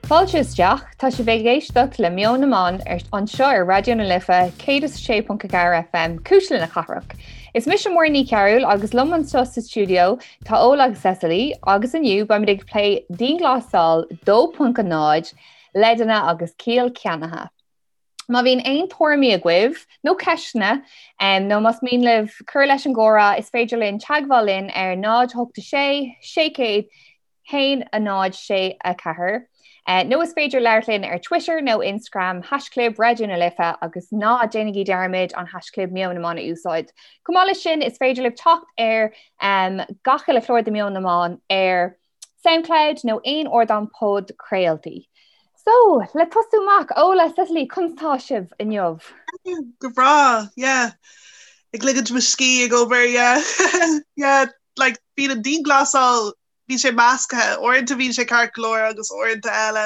Fáilte isteach, tá sibh ag éisteacht le Meon na mBan anseo ar Raidió na Life 106.4 FM, Cuisle na Cathrach. Is mise Muireann Ní Chearúil agus liom anseo sa stiúideo tá Ola agus Cecily agus inniu beimid ag plé dianghlasáil 2.0, leideanna agus ciall ceannaithe. Má bhíonn aon tuairimí agaibh nó ceisteanna nó más mian libh cur leis an gcomhrá, is féidir linn teagmháil linn ar 0 8 6 600 1 0 6 4 nó is féidir labhairt linn ar Twitter nó Instagram haischlib Raidió na Life agus ná déanaigí dearmad an haischlib Meon na mBan a úsáid. Chomh maith leis sin is féidir libh teacht ar gach uile chlár de Meon na mBan ar Soundcloud nó aon ardán podchraoltaí. So, le tosú amach, Ola, Cecily, conas tá sibh inniu? Go breá, yeah. Ag ligint mo scíth ag obair, yeah. Yeah, like, bíonn an dianghlasáil, bíonn sé measctha, uaireanta bíonn sé ceart go leor agus uaireanta eile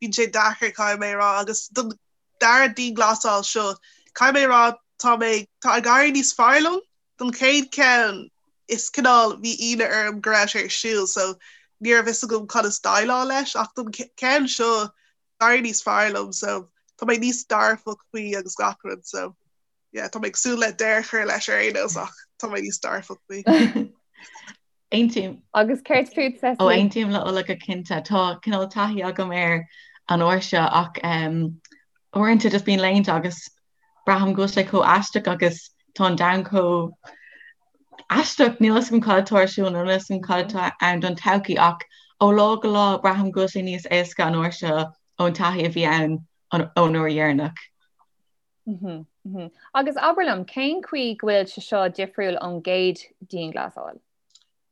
bíonn sé deacair, caithfidh mé a rá, agus don dara dianghlasáil seo, caithfidh mé a rá, tá mé, tá ag éirí níos fearr liom. Don chéad cheann, is cineál, bhí ionadh orm go raibh sé ar siúl so ní raibh fhios agam conas déileáil leis ach don cheann seo d'éirigh níos fearr liom so tá mé níos dearfach faoi agus gach rud so yeah tá mé ag súil le deireadh a chur leis ar aon nós ach tá mé níos dearfach faoi. Aontaím. Agus céard fút Cecily? Ó aontaím le Ola go cinnte. Tá cineál taithí agam air an uair seo ach uaireanta just bíonn laethanta agus braithim go bhfuil sé chomh aisteach agus tá an domhan chomh aisteach. Níl fhios agam cad atá ar siúl nó níl fhios agam cad atá ann don todhchaí ach ó lá go lá braithim go bhfuil sé níos éasca an uair seo ón taithí a bhí ann ón uair dheireanach. Agus abair liom, cén chaoi go bhfuil sé seo difriúil ón gcéad dianghlasáil?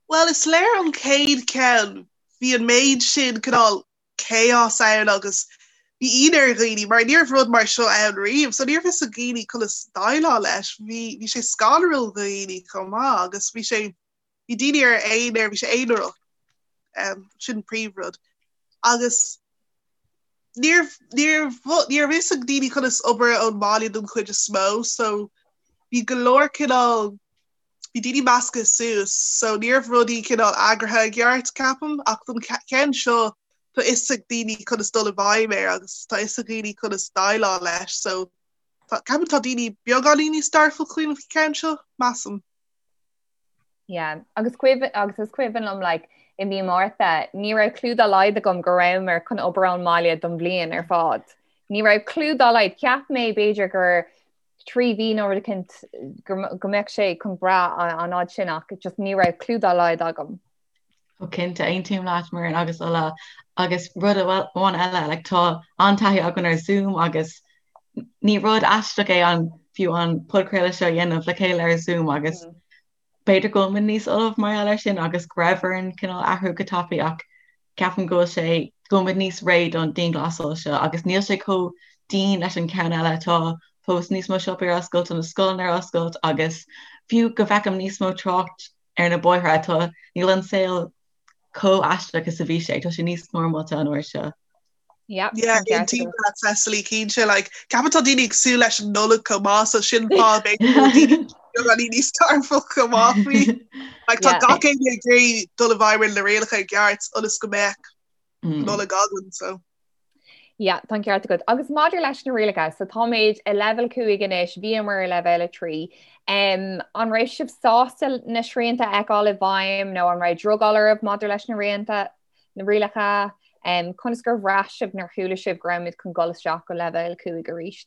Bhuel, is léir ón chéad cheann, bhí an méid sin cineál chaos ann agus bhí ionadh ar dhaoine mar ní raibh rud mar seo ann riamh, so ní raibh fhios ag daoine conas déileáil leis. Bhí, bhí sé scanrúil do dhaoine chomh maith agus bhí sé, bhí daoine ar aonar, bhí sé aonarach, um, sin príomhrud. Agus ní raibh, ní raibh, ní raibh fhios ag daoine conas obair ón mbaile don chuid is mó, so bhí go leor cineál bhí daoine measctha suas so ní raibh rudaí cineál eagraithe i gceart, ceapaim, ach don cheann seo tá fhios ag daoine conas dul i bhfeidhm air agus tá fhios ag daoine conas déileáil leis so tá, ceapaim tá daoine beagáinín níos dearfach faoin cheann seo, measaim. Yeah, agus cuimhin, agus is cuimhin liom like, i mí Márta, ní raibh clue dá laghad agam go rabhamar chun obair ón mbaile don bhliain ar fad. Ní raibh clue dá laghad, cheap mé b'fhéidir gur 3 mhí nó rud eicínt go mbeadh sé chun brath an fhad sin ach just ní raibh clue dá laghad agam. Ó cinnte, aontaím leat Muireann agus Ola agus rud amháin eile, like, tá an-taithí againn ar Zoom agus ní rud aisteach é an fiú an podchraoladh seo a dhéanamh le chéile ar Zoom agus mm. B'fhéidir go bhfuil muid níos ullamh mar gheall air sin agus go raibh orainn cineál athrú go tapaidh ach ceapaim go bhfuil sé, go bhfuil muid níos réidh don dianghlasáil seo agus níl sé chomh dian leis an ceann eile. Tá fós níos mó siopaí ar oscailt, tá na scoileanna ar oscailt agus fiú go bhfeicim níos mó trácht ar na bóithre, tá, níl an saol chomh aisteach is a bhí sé, tá sé níos normálta an uair seo. Yeah, Yeah, aontaím leat Cecily cinnte like ceapaim tá daoine ag súil leis an Nollaig chomh maith so sin fáth b'fhéidir níos dearfach chomh maith faoi. Like tá gach éinne ag iarraidh dul i bhfeidhm ar na rialacha i gceart ionas go mbeadh Nollaig againn so. Yeah, tá an ceart agat. Agus maidir leis na rialacha, so táimid i leibhéal 5 anois, bhíomar i leibhéal 3. Um, an raibh sibh sásta na srianta a fheiceáil i bhfeidhm nó an raibh drogall oraibh maidir leis na rianta? na rialacha, conas gur bhraith sibh nuair chuala sibh go raibh muid chun dul isteach go leibhéal 5 arís?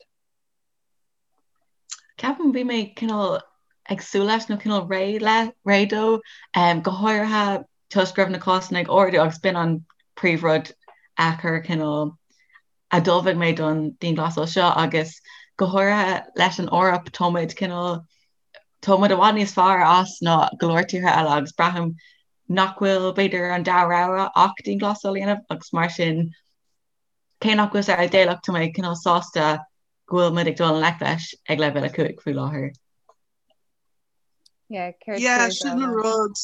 Ceapaim bhí mé cineál ag súil leis nó cineál réidh le, réidh dó, go háirithe toisc go raibh na cásanna ag ardú agus b'in an príomhrud a chuir cineál a d'ullmhaigh mé don dianghlasáil seo agus go háirithe leis an Eoraip tá muid cineál tá muid i bhfad níos fearr as ná go leor tíortha eile agus braithim nach bhfuil, b'fhéidir, an dara rogha ach dianghlasáil a dhéanamh agus mar sin, cé nach bhfuil sé idéalach, tá mé cineál sásta go bhfuil muid ag dul i ngleic leis ag leibhéal 5 faoi láthair. Yeah, sin an rud.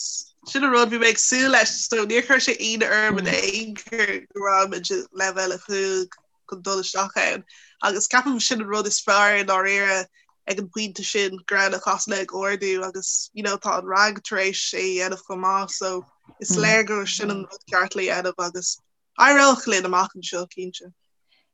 Sin an rud bhí mé ag súil leis so níor chuir sé ionadh orm in aon chor go raibh muid i leibhéal 5 chun dul isteach ann. Agus ceapaim sin an rud is fearr i ndáiríre ag an bpointe sin go raibh na cásanna ag ardú agus you know tá an RnaG tar éis é a dhéanamh chomh maith so is léir gur sin an rud ceart le dhéanamh agus. Éireoidh linn amach anseo, cinnte.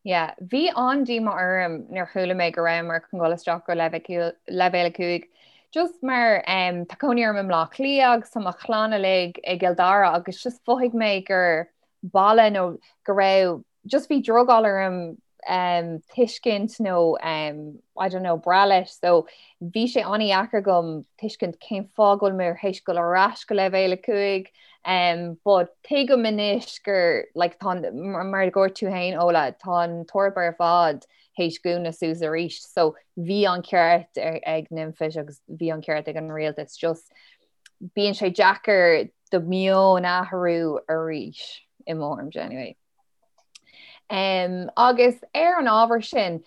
Yeah, bhí an-díomá orm nuair chuala mé go rabhamar chun dul isteach go leibhéal 5. Just mar um, tá cónaí orm i mBleá Cliath agus tá mo chlann uilig i gCill Dara agus just mhothaigh mé gur baile nó go raibh just bhí drogall orm um, tuiscint nó um, I don't know, brath leis, so bhí sé an-dheacair agam tuiscint cén fáth go bhfuil mé théis dul ar ais go leibhéal 5 um, but tuigim anois gur like, tá, mar a dúirt tú féin Ola, tá an tEoraip ar fad théis dúnadh suas arís, so bhí an ceart ag NPHET agus bhí an ceart ag an rialtas just bíonn sé deacair do meon a athrú arís i mo thuairimse anyway. Um, agus ar an ábhar sin,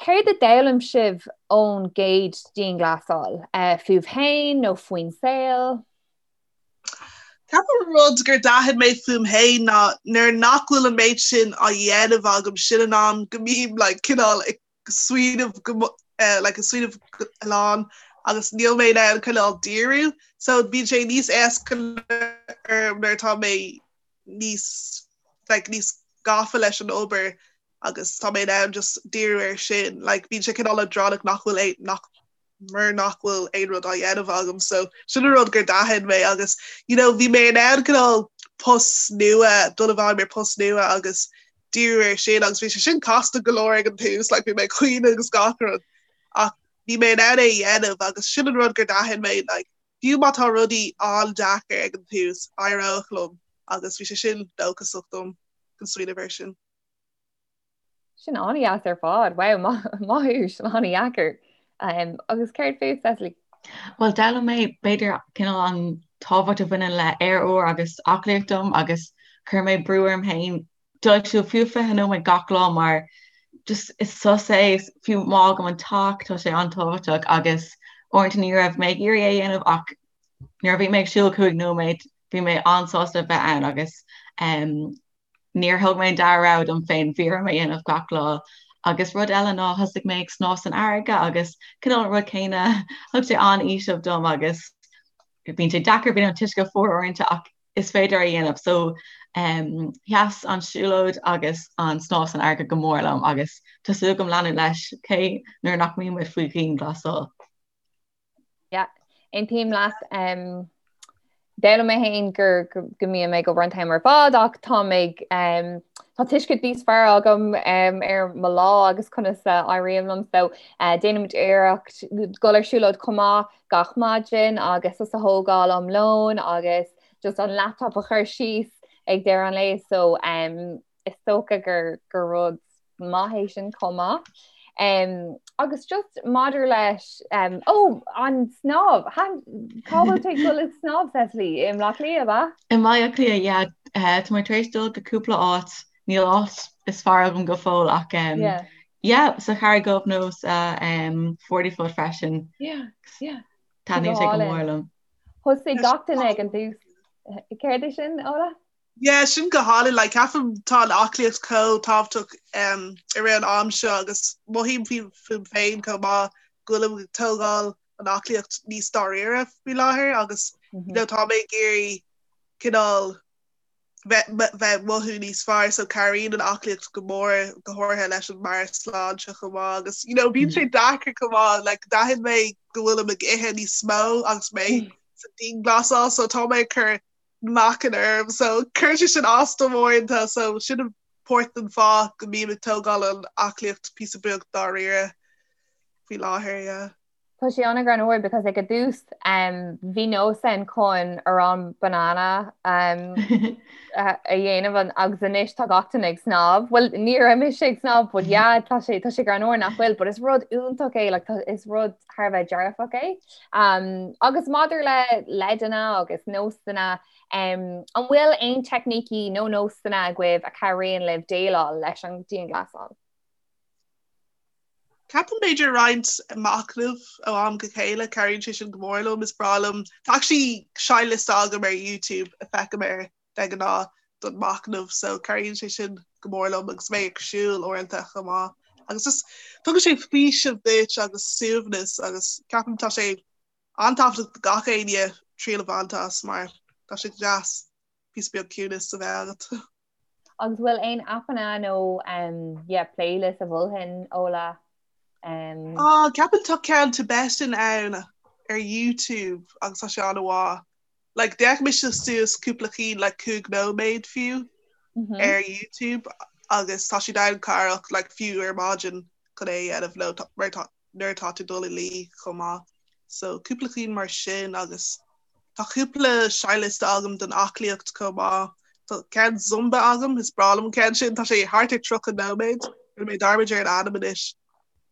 céard a d'fhoghlaim sibh ón gcéad dianghlasáil? Uh, fúibh féin nó faoin saol? Ceapaim rud gur d'aithin mé fúm féin ná nuair nach bhfuil an méid sin á dhéanamh agam sin an am go mbím like, cineál ag smaoineamh go uh, like, ag smaoineamh a lán agus níl mé in ann cineál díriú so bíonn sé níos éasca orm nuair atá mé níos like, níos gafa leis an obair agus tá mé in ann just díriú ar sin. Like, bíonn sé cineál leadránach nach bhfuil é nach mar nach bhfuil aon rud á dhéanamh agam so sin an rud gur d'aithin mé agus you know, bhí mé in ann cineál post nua dul i bhfeidhm ar post nua agus díriú ar sin agus bhí sé sin casta go leor ag an tús like, bhí mé ag caoineadh agus gach rud ach bhí mé in ann é a dhéanamh agus sin an rud gur d'aithin mé like, Fiú má tá rudaí an-deacair ag an tús, éireoidh liom agus bhí sé sin dóchasach dom chun smaoineamh air sin. Sin an-dheas ar fad. Wow, maith thú, sin an-dheacair. Um, agus céard fút, Cecily? Bhuel, d'fhoghlaim mé b'fhéidir cineál an tábhacht a bhaineann le aer úr agus aclaíocht dom agus chuir mé brú orm féin dul ag siúl fiú 20 nóiméad gach lá mar just is sos é fiú má fhágaim an teach tá sé an-tábhachtach agus uaireanta ní raibh mé ag iarraidh é a dhéanamh ach nuair a bhí mé ag siúl 5 nóiméad bhí mé an-sásta a bheith ann agus um, níor thóg mé an dara rogha dom féin bhí orm é a dhéanamh gach lá. Agus rud eile ná thosaigh mé ag snámh san fharraige agus cineál an rud céanna thug sé an-fhaoiseamh dom agus bíonn sé deacair bíonn an t-uisce fuar uaireanta ach is féidir a dhéanamh. So um, sheas an siúlóid agus an snámh san fharraige go mór liom agus tá súil agam leanúint leis cé nuair nach mbímid faoi dhianghlasáil. Yeah, aontaím leat. Um, D'fhoghlaim mé féin gur go mbím ag obair an t-am ar fad ach tá mé um, tá tuiscint níos fearr agam um, ar mo lá agus conas a éiríonn liom so uh, déanaimid iarracht dul ar siúlóid chomh maith gach maidin agus sos a thógáil am lóin agus just an laptop a chur síos ag deireadh an lae so um, is dócha gur gur rud maith é sin chomh maith. Um, agus just maidir leis um, ó an snámh cá bhfuil tú ag dul ag snámh Cecily i mBleá Cliath ab ea? I mBaile Átha Cliath yeah, uh, tá mé tar éis dul go cúpla áit níl áit is fearr agam go fóill ach um, yeah. Yeah, sa Charraig Dhubh nó sa um, Forty Foot freisin. Yeah, yeah. Taitníonn sé go mór liom. Thosaigh gach duine ag an tús. Céard é sin, Ola? Yeah, sin go hálainn. Like, ceapaim tá an aclaíocht chomh tábhachtach um, i rith an am seo agus mothaím fúm féin chomh maith go bhfuilim ag tógáil an aclaíocht níos dáiríre faoi láthair agus mm -hmm. you know, tá mé ag iarraidh cineál bheith ag mothú níos fearr so cabhraíonn an aclaíocht go mór go háirithe leis an meabhairshláinte chomh maith agus you know bíonn sé deacair chomh maith like d'aithin mé go bhfuilim ag ithe níos mó agus mé sa dianghlasáil so tá mé ag cur meáchan orm so cuireann sé sin as dom uaireanta so sin páirt den fáth go mbím ag tógáil an aclaíocht píosa beag dáiríre faoi láthair yeah. Tá sé an-ghreannmhar because ag an dtús um, bhí nós ann chun arán banana um, a dhéanamh an, agus anois tá gach duine ag snámh. Well ní raibh mise ag snámh but yeah tá sé tá sé greannmhar nach bhfuil, but is rud iontach é like, tá, is rud thar a bheith dearfach é. Um, agus maidir le leideanna agus nósanna um, an bhfuil aon teicnící nó nósanna agaibh a chabhraíonn libh déileáil leis an dianghlasáil? Ceapaim b'fhéidir roinnt machnaimh ó am go chéile, cabhraíonn sé sin go mór liom, is breá liom. Tá actually seinnliosta agam ar YouTube a feicim air de ghnáth don machnamh so cabhraíonn sé sin go mór liom agus mé ag siúl uaireanta chomh maith. Agus just tugann sé faoiseamh duit agus suaimhneas agus ceapaim tá sé an-tábhachtach do gach éinne triail a bhaint as mar tá sé deas píosa beag ciúnas a bheith agat. Agus bhfuil aon aipeanna nó um, yeah, playlist a mholfainn Ola? Um... Oh, ceapaim tá ceann Tibetan ann ar YouTube agus tá sé an-mhaith. Like, d'fhéach mise suas cúpla cinn like 5 nóiméad fiú mm -hmm. ar YouTube agus tá siad an-chabhrach like, fiú ar maidin chun é a dhéanamh nó mar tá nuair atá tú dul a luí chomh maith. So cúpla cinn mar sin agus tá cúpla seinnliosta agam don aclaíocht chomh maith. Tá ceann Zumba agam, is breá liom an ceann sin, tá sé thart ar 30 nóiméad, rinne mé dearmad ar an ainm anois.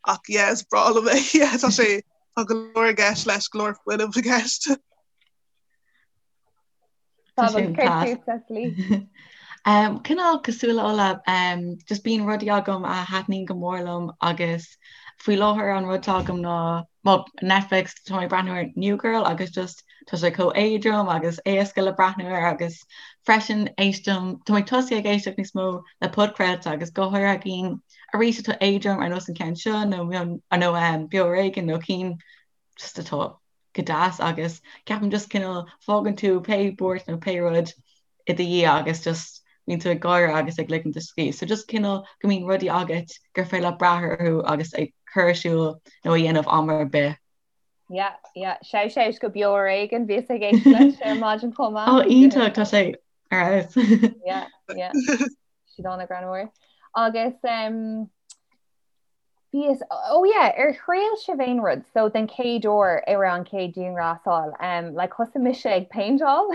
Ach yeah, is breá liom é, yeah, tá sé tá go leor i gceist leis, go leor fuinnimh i gceist. Cineál cosúil le Ola, just bíonn rudaí agam a thaitníonn go mór liom agus faoi láthair an rud atá agam ná well, Netflix tá mé ag breathnú ar New Girl agus just tá sé chomh éadrom agus éasca le breathnú air agus freisin éistim tá mé tosaithe ag éisteacht níos mó le podchraolta agus go háirithe cinn arís atá éadrom ar nós an ceann seo nó nó Beo Ar Éigean nó cinn just atá go deas agus ceapaim just cineál fágann tú pé buairt nó pé rud i do dhiaidh agus just bíonn tú ag gáire agus ag ligint do scíth. So just cineál go mbíonn rudaí agat gur féidir leat brath orthu agus ag cur ar siúl nó a dhéanamh am ar bith. Yeah, yeah. Shout out go Beo Ar Éigean, bhíos ag éisteacht leis ar maidin chomh maith. Ó iontach, tá sé ar fheabhas. Yeah, yeah. Siad an-ghreannmhar. Agus um, Bhíos, oh yeah, ar thriail sibh aon rud, so den chéad uair ar an chéad dianghlasáil, um, like thosaigh mise ag péinteáil.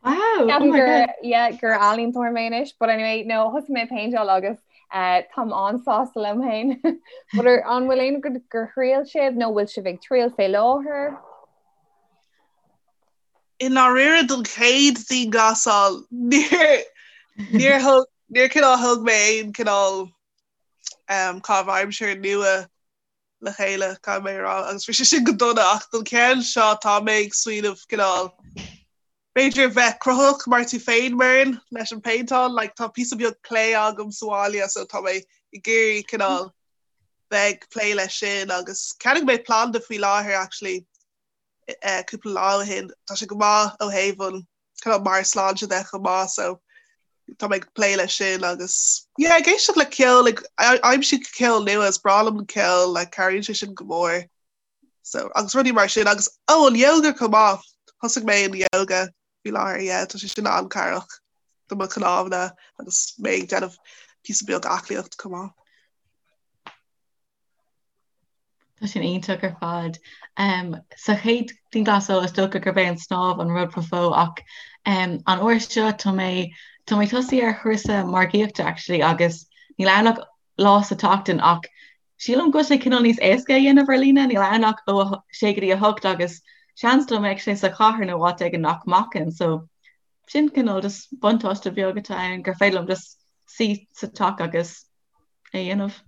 Wow, oh my gur, God. yeah, gur ealaíontóir mé anois, but anyway, no, thosaigh mé ag péinteáil agus uh, táim an-sásta liom féin. But ar, an bhfuil aon rud gur thriail sibh nó bhfuil sibh ag triail fé láthair? I ndáiríre don chéad dianghlasáil, níor, níor thug, níor cineál thug mé aon cineál um, caitheamh aimsire nua le chéile caithfidh mé a rá agus bhí sé sin go dona ach don cheann seo tá mé ag smaoineamh cineál b'fhéidir bheith cruthaitheach mar tú féin Muireann leis an péinteáil like, tá píosa beag clay agam sa bhaile so tá mé ag iarraidh cineál bheith ag plé leis sin agus cheannaigh mé planda faoi láthair actually eh, cúpla lá ó shin tá sé go maith ó thaobh an cineál meabhairshláinte de chomh maith so tá mé ag plé leis sin agus yeah ag éisteacht le ceol ag aimsiú ceol nua is breá liom an ceol like cabhraíonn sé sin go mór so agus rudaí mar sin agus oh an yoga chomh maith thosaigh mé an yoga faoi láthair yeah tá sé sin an-chabhrach do mo chnámha agus mé ag déanamh píosa beag aclaíocht chomh maith. Tá sin iontach ar fad. Sa chéad dianghlasáil is dócha gurb é an snámh an rud ba mhó ach an uair seo tá mé tá mé tosaithe ar chúrsa margaíochta actually agus níl ann ach lá sa tseachtain ach sílim go bhfuil sé cineál níos éasca a dhéanamh ar líne, níl ann ach ó 6 go dtí 8 agus seans dá mbeadh sé sa chathair nó áit éigin nach mbacfainn so sin cineál just buntáiste beag atá ann gur féidir liom just suí sa teach agus é a dhéanamh.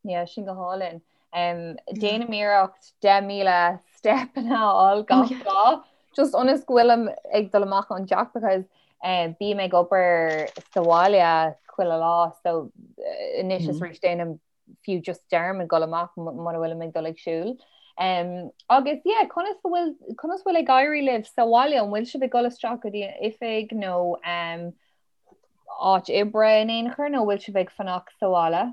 Yeah, sin go hálainn. Um, déanaim iarracht 10,000 step a fháil gach oh, lá. Just ionas go bhfuilim ag dul amach ón dteach because um, bím ag obair sa bhaile chuile lá so uh, anois is mm. arís déanaim fiú just dearmad dul amach muna bhfuilim ag dul ag siúl. Um, agus yeah, conas bhfuil conas bhfuil ag éirí libh sa bhaile an bhfuil sibh ag dul isteach go dtí an oifig nó um, áit oibre in aon chor nó bhfuil sibh ag fanacht sa bhaile?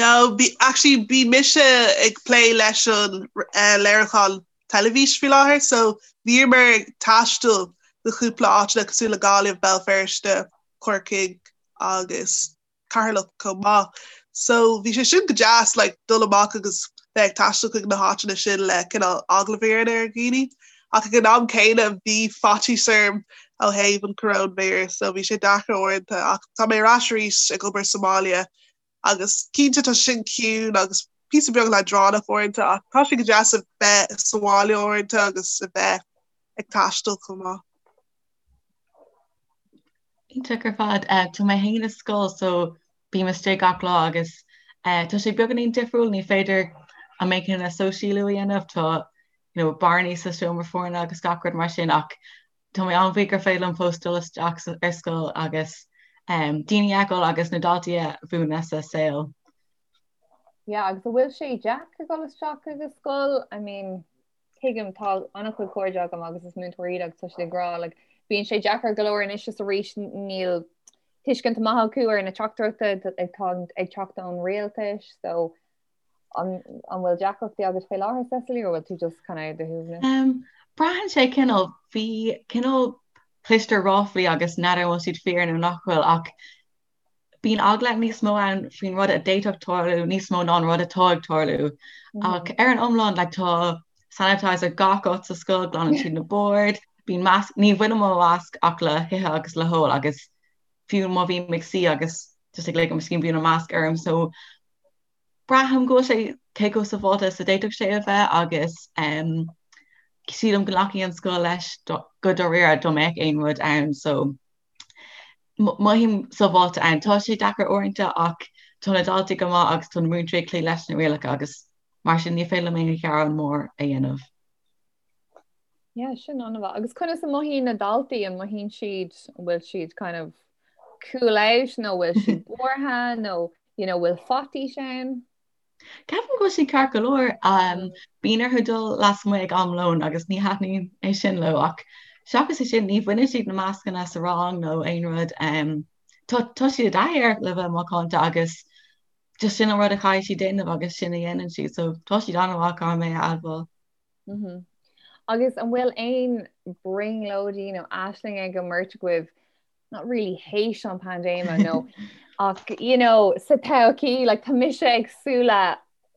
No, bí, actually bhí mise ag plé leis an uh, léiriúchán teilifís faoi láthair, so bhíomar ag taisteal go cúpla áiteanna cosúil le Gaillimh, Béal Feirste, Corcaigh agus Ceatharlach chomh maith. So bhí sé sin go deas like dul amach agus bheith ag taisteal chuig na háiteanna sin le cineál agallamh a dhéanamh ar dhaoine. Ach ag an am céanna bhí faitíos orm ó thaobh an coróinvíreas so bhí sé deacair uaireanta ach tá mé ar ais arís ag obair sa mbaile agus cinnte tá sin ciúin agus píosa beag leadránach uaireanta ach tá sé go deas a bheith sa bhaile uaireanta agus a bheith ag taisteal chomh maith. Iontach ar fad. Tá mé féin i scoil so bím istigh gach lá agus tá sé beagáinín difriúil, ní féidir an méid céanna sóisialú a dhéanamh, tá you know bearnaí sa seomra foirne agus gach rud mar sin ach tá mé an-bhuíoch gur féidir liom fós dul isteach ar scoil agus daoine a fheiceáil agus na daltaí a mhúineadh sa saol. Yeah, agus an bhfuil sé deacair dul isteach ag an scoil? I mean, Tuigim, tá an-chuid cairde agam agus is múinteoirí iad agus tá siad ag rá like, Bíonn sé deacair go leor anois is arís níl tuiscint maith acu ar na teachtaireachtaí atá ag teacht ón rialtas so an an bhfuil deacrachtaí agat faoi láthair Cecily or bhfuil tú just kind of ar do shuaimhneas? Um, braitheann sé cineál bhí cineál cloistear ráflaí agus n'fheadar an bhfuil siad fíor nó nach bhfuil ach bíonn eagla níos mó ann faoin rud a d'fhéadfadh tarlú níos mó ná an rud atá ag tarlú. Ach ar an iomlán like, tá sanitizer gach áit sa scoil, glanann siad na boird, bíonn masc, ní bhainim mo mhasc ach le hithe agus le hól agus fiú má bhím ag suí agus just ag ligean mo scíth bíonn an masc orm so braithim go bhfuil sé cé chomh sábháilte is a d'fhéadfadh sé a bheith agus um, sílim go nglacfaidh an scoil leis go dáiríre dá mbeadh aon rud ann so Mothaím sábháilte ann. Tá sé deacair uaireanta ach tá na daltaí go maith agus tá na múinteoirí ag cloí leis na rialacha agus mar sin ní féidir liom aon ghearán mór a dhéanamh. Yeah, sin an-mhaith. Agus conas a mothaíonn na daltaí? An mothaíonn siad, an bhfuil siad kind of cool out nó bhfuil siad buartha nó you know, bhfuil faitíos ann? Ceapaim go bhfuil siad ceart go leor. Bíonn orthu dul lasmuigh ag am lóin agus ní thaitníonn é sin leo ach seachas é sin ní bhaineann siad na mascanna sa rang nó aon rud. Tá tá siad i dtaithí air le bheith macánta agus just sin an rud a chaithfidh siad déanamh agus sin a dhéanann siad so tá siad an-mhaith caithfidh mé a admháil. Agus an bhfuil aon brionglóidí nó aisling ag an mbeirt agaibh not really théis an paindéime nó ach you know sa todhchaí like tá mise ag súil le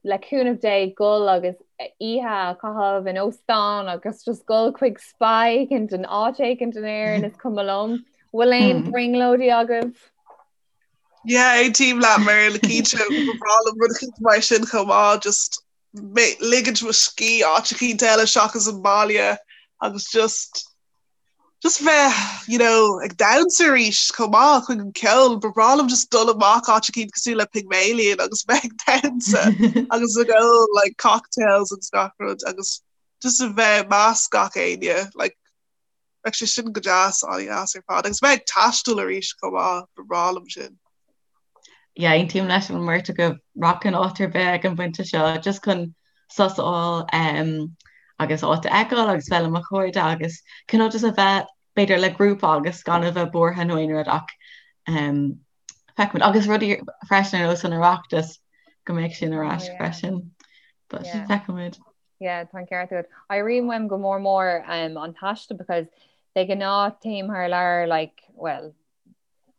le cúnamh Dé gul agus oíche a chaitheamh in óstán agus just gul chuig spa éicint in áit éicint in Éirinn is cuma liom. Bhfuil aon hmm. brionglóidí agaibh? Yeah, aontaím leat mar le cinnte ba bhreá liom rud éicint mar sin chomh maith just ligint mo scíth áit éicint eile seachas an baile agus just just bheith you know ag damhsa arís chomh maith chuig an ceol ba bhreá liom just dul amach áit éicint cosúil le Pygmalion agus bheith ag damhsa agus ag ól like cocktails agus gach rud agus just a bheith measc gach éinne like bheadh sé sin go deas an-deas ar fad agus bheith ag taisteal arís chomh maith ba bhreá liom sin. Yeah, aontaím leis an mbeirt agaibh rachainn áit ar bith ag an bpointe seo just chun sos a fháil um, agus áit a fheiceáil agus bheith le mo chairde agus cineál just a bheith b'fhéidir le grúpa agus gan a bheith buartha nó aon rud ach um, feicfimid agus rudaí freisin ar nós an Oireachtas go mbeidh sin ar ais oh, freisin. But yeah. feicfimid. Yeah, tá an ceart agat. Airíonn uaim go mór mór um, an taisteal because de ghnáth téim thar lear like, well,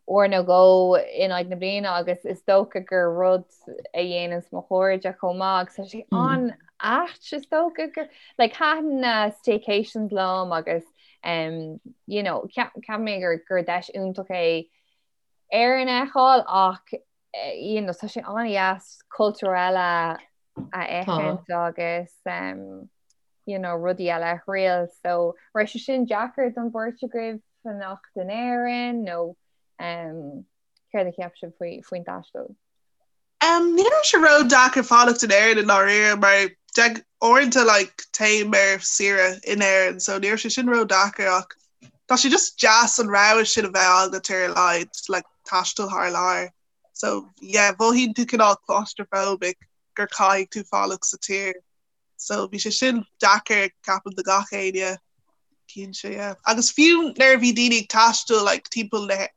uair nó dhó in aghaidh na bliana agus is dócha gur rud a dhéananns mo chairde chomh maith agus tá sé an-ait is dócha gur like thaitin na staycations liom agus um, you know, ceapaim mé gur gur deis iontach é Éirinn a fheiceáil ach eh, you know, tá sé an-dheas cultúr eile a fheiscint agus um, you know, rudaí eile a thriail so raibh sé sin deacair don bheirt agaibh fanacht in Éirinn nó um, céard a cheap sibh faoi faoin taisteal? Um, ní raibh sé ró-deacair fanacht in Éirinn i ndáiríre mar de uaireanta like, téim ar saoire in Éirinn so ní raibh sé sin ró-deacair ach tá sé just deas an rogha sin a bheith agat ar a laghad like, taisteal thar lear. So yeah, mhothaíonn tú cineál claustrophobic gur caithfidh tú fanacht sa tír. So bhí sé sin deacair ceapaim do gach éinne cinnte yeah. Agus fiú nuair a bhí daoine ag taisteal like, timpeall na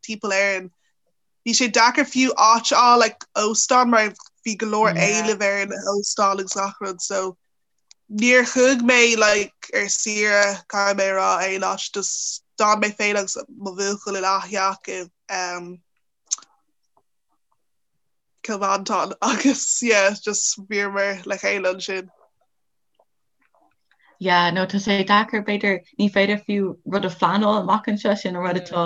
timpeall Éireann, bhí sé deacair fiú áit a fháil like, óstán mar bhí go leor Yeah. éilimh ar na hóstáin agus gach rud so níor chuaigh mé like, ar saoire caithfidh mé a rá aon áit just d'fhan mé féin agus mo bhuachaill in aththeach i um, Cill Mhantáin agus yeah just bhíomar le chéile ansin. Yeah, no tá sé deacair b'fhéidir ní féidir fiú rud a phleanáil amach anseo sin an rud atá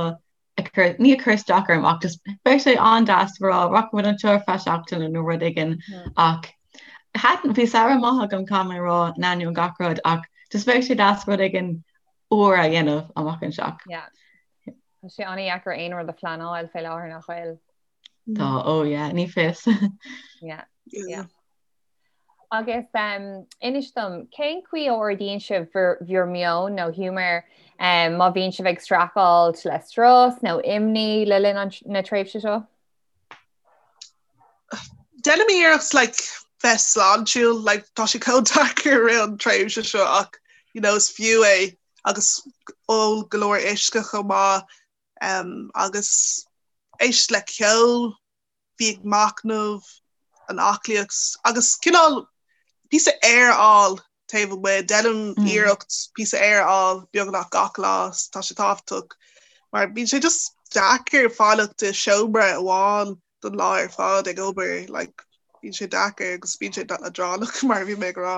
ag cur ní ag cur isteach orm ach just bheadh sé an-deas rá rachaimid anseo ar feadh seachtaine nó rud éigin ach thaitin bhí samhradh maith agam caithfidh mé a rá in ainneoin gach rud ach just bheadh sé deas rud éigin úr a dhéanamh amach anseo. Yeah. Tá sé an-deacair aon rud a phleanáil fé láthair nach bhfuil. Tá, oh yeah, ní fios. Yeah, yeah. Agus um, inis dom, cén chaoi a ardaíonn sibh bhur, bhur meon nó giúmar um, má bhíonn sibh ag streachailt le strus nó imní le linn an, na tréimhse seo? Déanaim iarracht like, bheith sláintiúil, like, tá sé chomh deacair i rith an tréimhse seo ach you know, is fiú é agus Ól go leor uisce chomh maith agus éist le ceol, bí ag machnamh, an aclaíocht agus cineál píosa aer a fháil taobh amuigh. Déanaim iarracht píosa aer a fháil beagnach gach lá, tá sé tábhachtach mar bíonn sé just deacair fanacht i seomra amháin don lá ar fad ag obair, like bíonn sé deacair agus bíonn sé leadránach mar a bhí mé ag rá.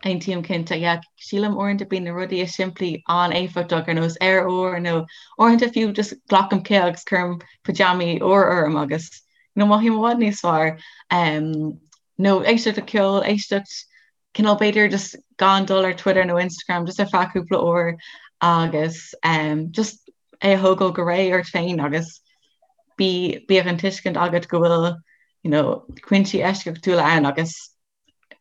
Aontaím cinnte, yeah. Sílim uaireanta bíonn na rudaí is simplí an-éifeachtach ar nós aer úr nó uaireanta fiú just glacaim cith agus cuirim pajamaí úr orm agus you know, mothaím i bhfad níos fearr. Um, nó éisteacht le ceol, éisteacht cineál b'fhéidir just gan dul ar Twitter nó Instagram just ar feadh cúpla uair agus um, just é a thógáil go réidh ort féin agus bí bíodh an tuiscint agat go bhfuil you know, cúinsí eisceachtúla ann agus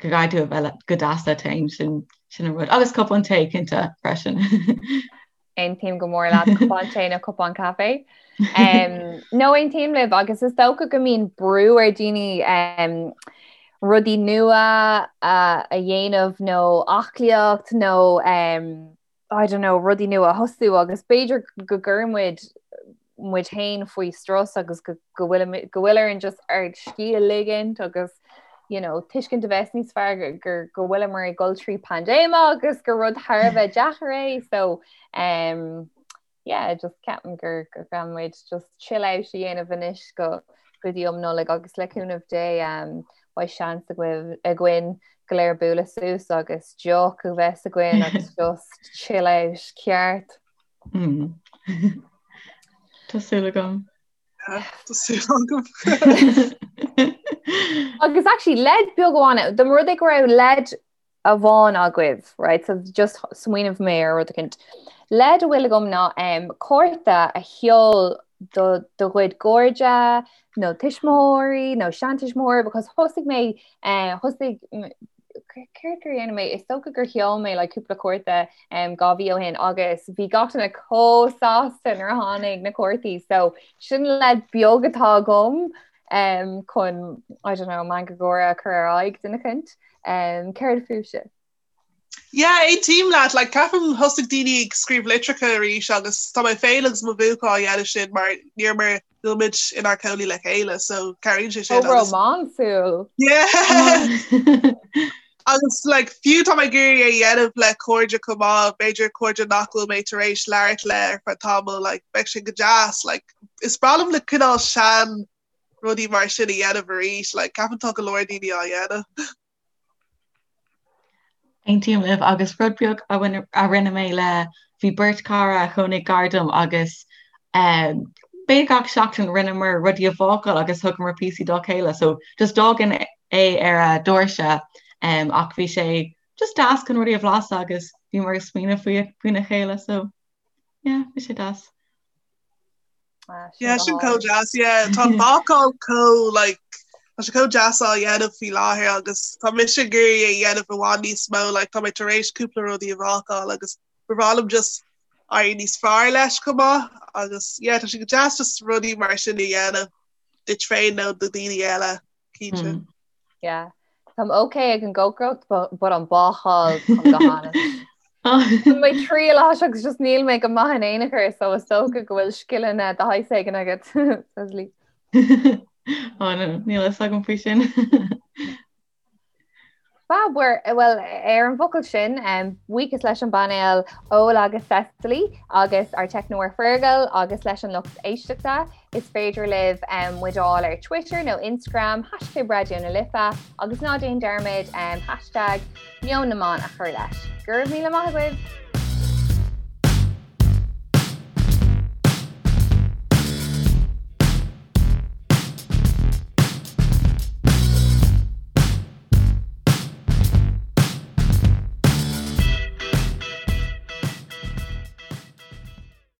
go gcaithfidh tú a bheith go deas leat féin, sin sin an rud. Agus cupán tae cinnte freisin. Aontaím go mór leat cupán tae nó cupán caife. Um, no aontaím libh agus is dócha go mbíonn brú ar daoine um, rudaí nua a, a dhéanamh nó aclaíocht nó um, I don't know, rudaí nua a thosú agus b'fhéidir go gcuireann muid muid féin faoi strus agus go bhfuil go bhfuil orainn just ár scíth a ligint agus you know, tuiscint a bheith níos fearr gur go bhfuileamar ag dul trí paindéim agus gur rud thar a bheith deacair é so um, yeah, just ceapaim gur gur gcaithfidh muid just chill out a dhéanamh anois go go dtí um Nollaig agus le cúnamh Dé um, beidh seans againn go léir bualadh suas agus deoch a bheith againn agus just chill out ceart. Mm. Tá súil agam. Tá súil agam. Agus actually leid beag amháin, dá mba rud é go raibh leid amháin agaibh, right? So just smaoinigh mé ar rud eicínt. Leid a bhfuil agam ná um, cárta a sheol do do chuid cairde nó tuismitheoirí nó seantuismitheoirí because thosaigh mé uh, thosaigh céard gur dhéan mé is dócha gur sheol mé like cúpla cárta um, 2 mhí ó shin agus bhí gach duine chomh sásta nuair a tháinig na cártaí so sin leid beag atá agam um, chun I don't know meangadh gáire a chur ar aghaidh duine eicínt um, céard fúibhse? Yeah, aontaím leat, like ceapaim thosaigh daoine ag scríobh litreacha arís agus tá mé féin agus mo bhuachaill á dhéanamh sin mar níor mar níl muid inár cónaí le chéile so cabhraíonn sé sin. Chomh rómánsúil. Yeah. Agus like fiú tá mé ag iarraidh é a dhéanamh le cairde chomh maith, b'fhéidir cairde nach bhfuil mé tar éis labhairt le ar feadh tamaill, like bheadh sé go deas, like is breá liom le cineál sean rudaí mar sin a dhéanamh arís, like ceapaim tá go leor daoine á dhéanamh. Aontaím libh agus rud beag a rinne mé le bhí beirt cara a chónaigh gar dom agus b'fhéidir gach seachtain rinneamar rudaí a bhácáil agus thugamar píosaí dá chéile so just d'fhágainn é ar a doirse ach bhí sé just deas chun rudaí a bhlaiseadh agus bhíomar ag smaoineamh faoi faoina chéile so yeah bhí sé deas. Yeah, sin chomh deas, yeah. Tá an bácáil chomh like tá sé chomh deas á dhéanamh faoi láthair agus tá mise ag iarraidh é a dhéanamh i bhfad níos mó, like tá mé tar éis cúpla rudaí a bhácáil agus ba bhreá liom just éirí níos fearr leis chomh maith agus yeah tá sé go deas just rudaí mar sin a dhéanamh duit féin nó do dhaoine eile, cinnte. Mm. Yeah. Táim ok ag an gcócaireacht but an bácáil táim go han-. Tá mé triail as agus just níl mé go maith in aon chor so is dócha go bhfuil scileanna de shaghas éigin agat Cecily. Ó no, níl a fhios agam faoi sin. Fab, well ar an bhfocal sin, buíochas leis an bpainéal Ola agus Cecily agus ár teicneoir Fergal agus leis an lucht éisteachta. Is féidir libh muid a fháil ar Twitter nó Instagram, hashtag Raidió na Life agus ná déan dearmad hashtag Meon na mBan a chur leis. Go raibh míle maith agaibh!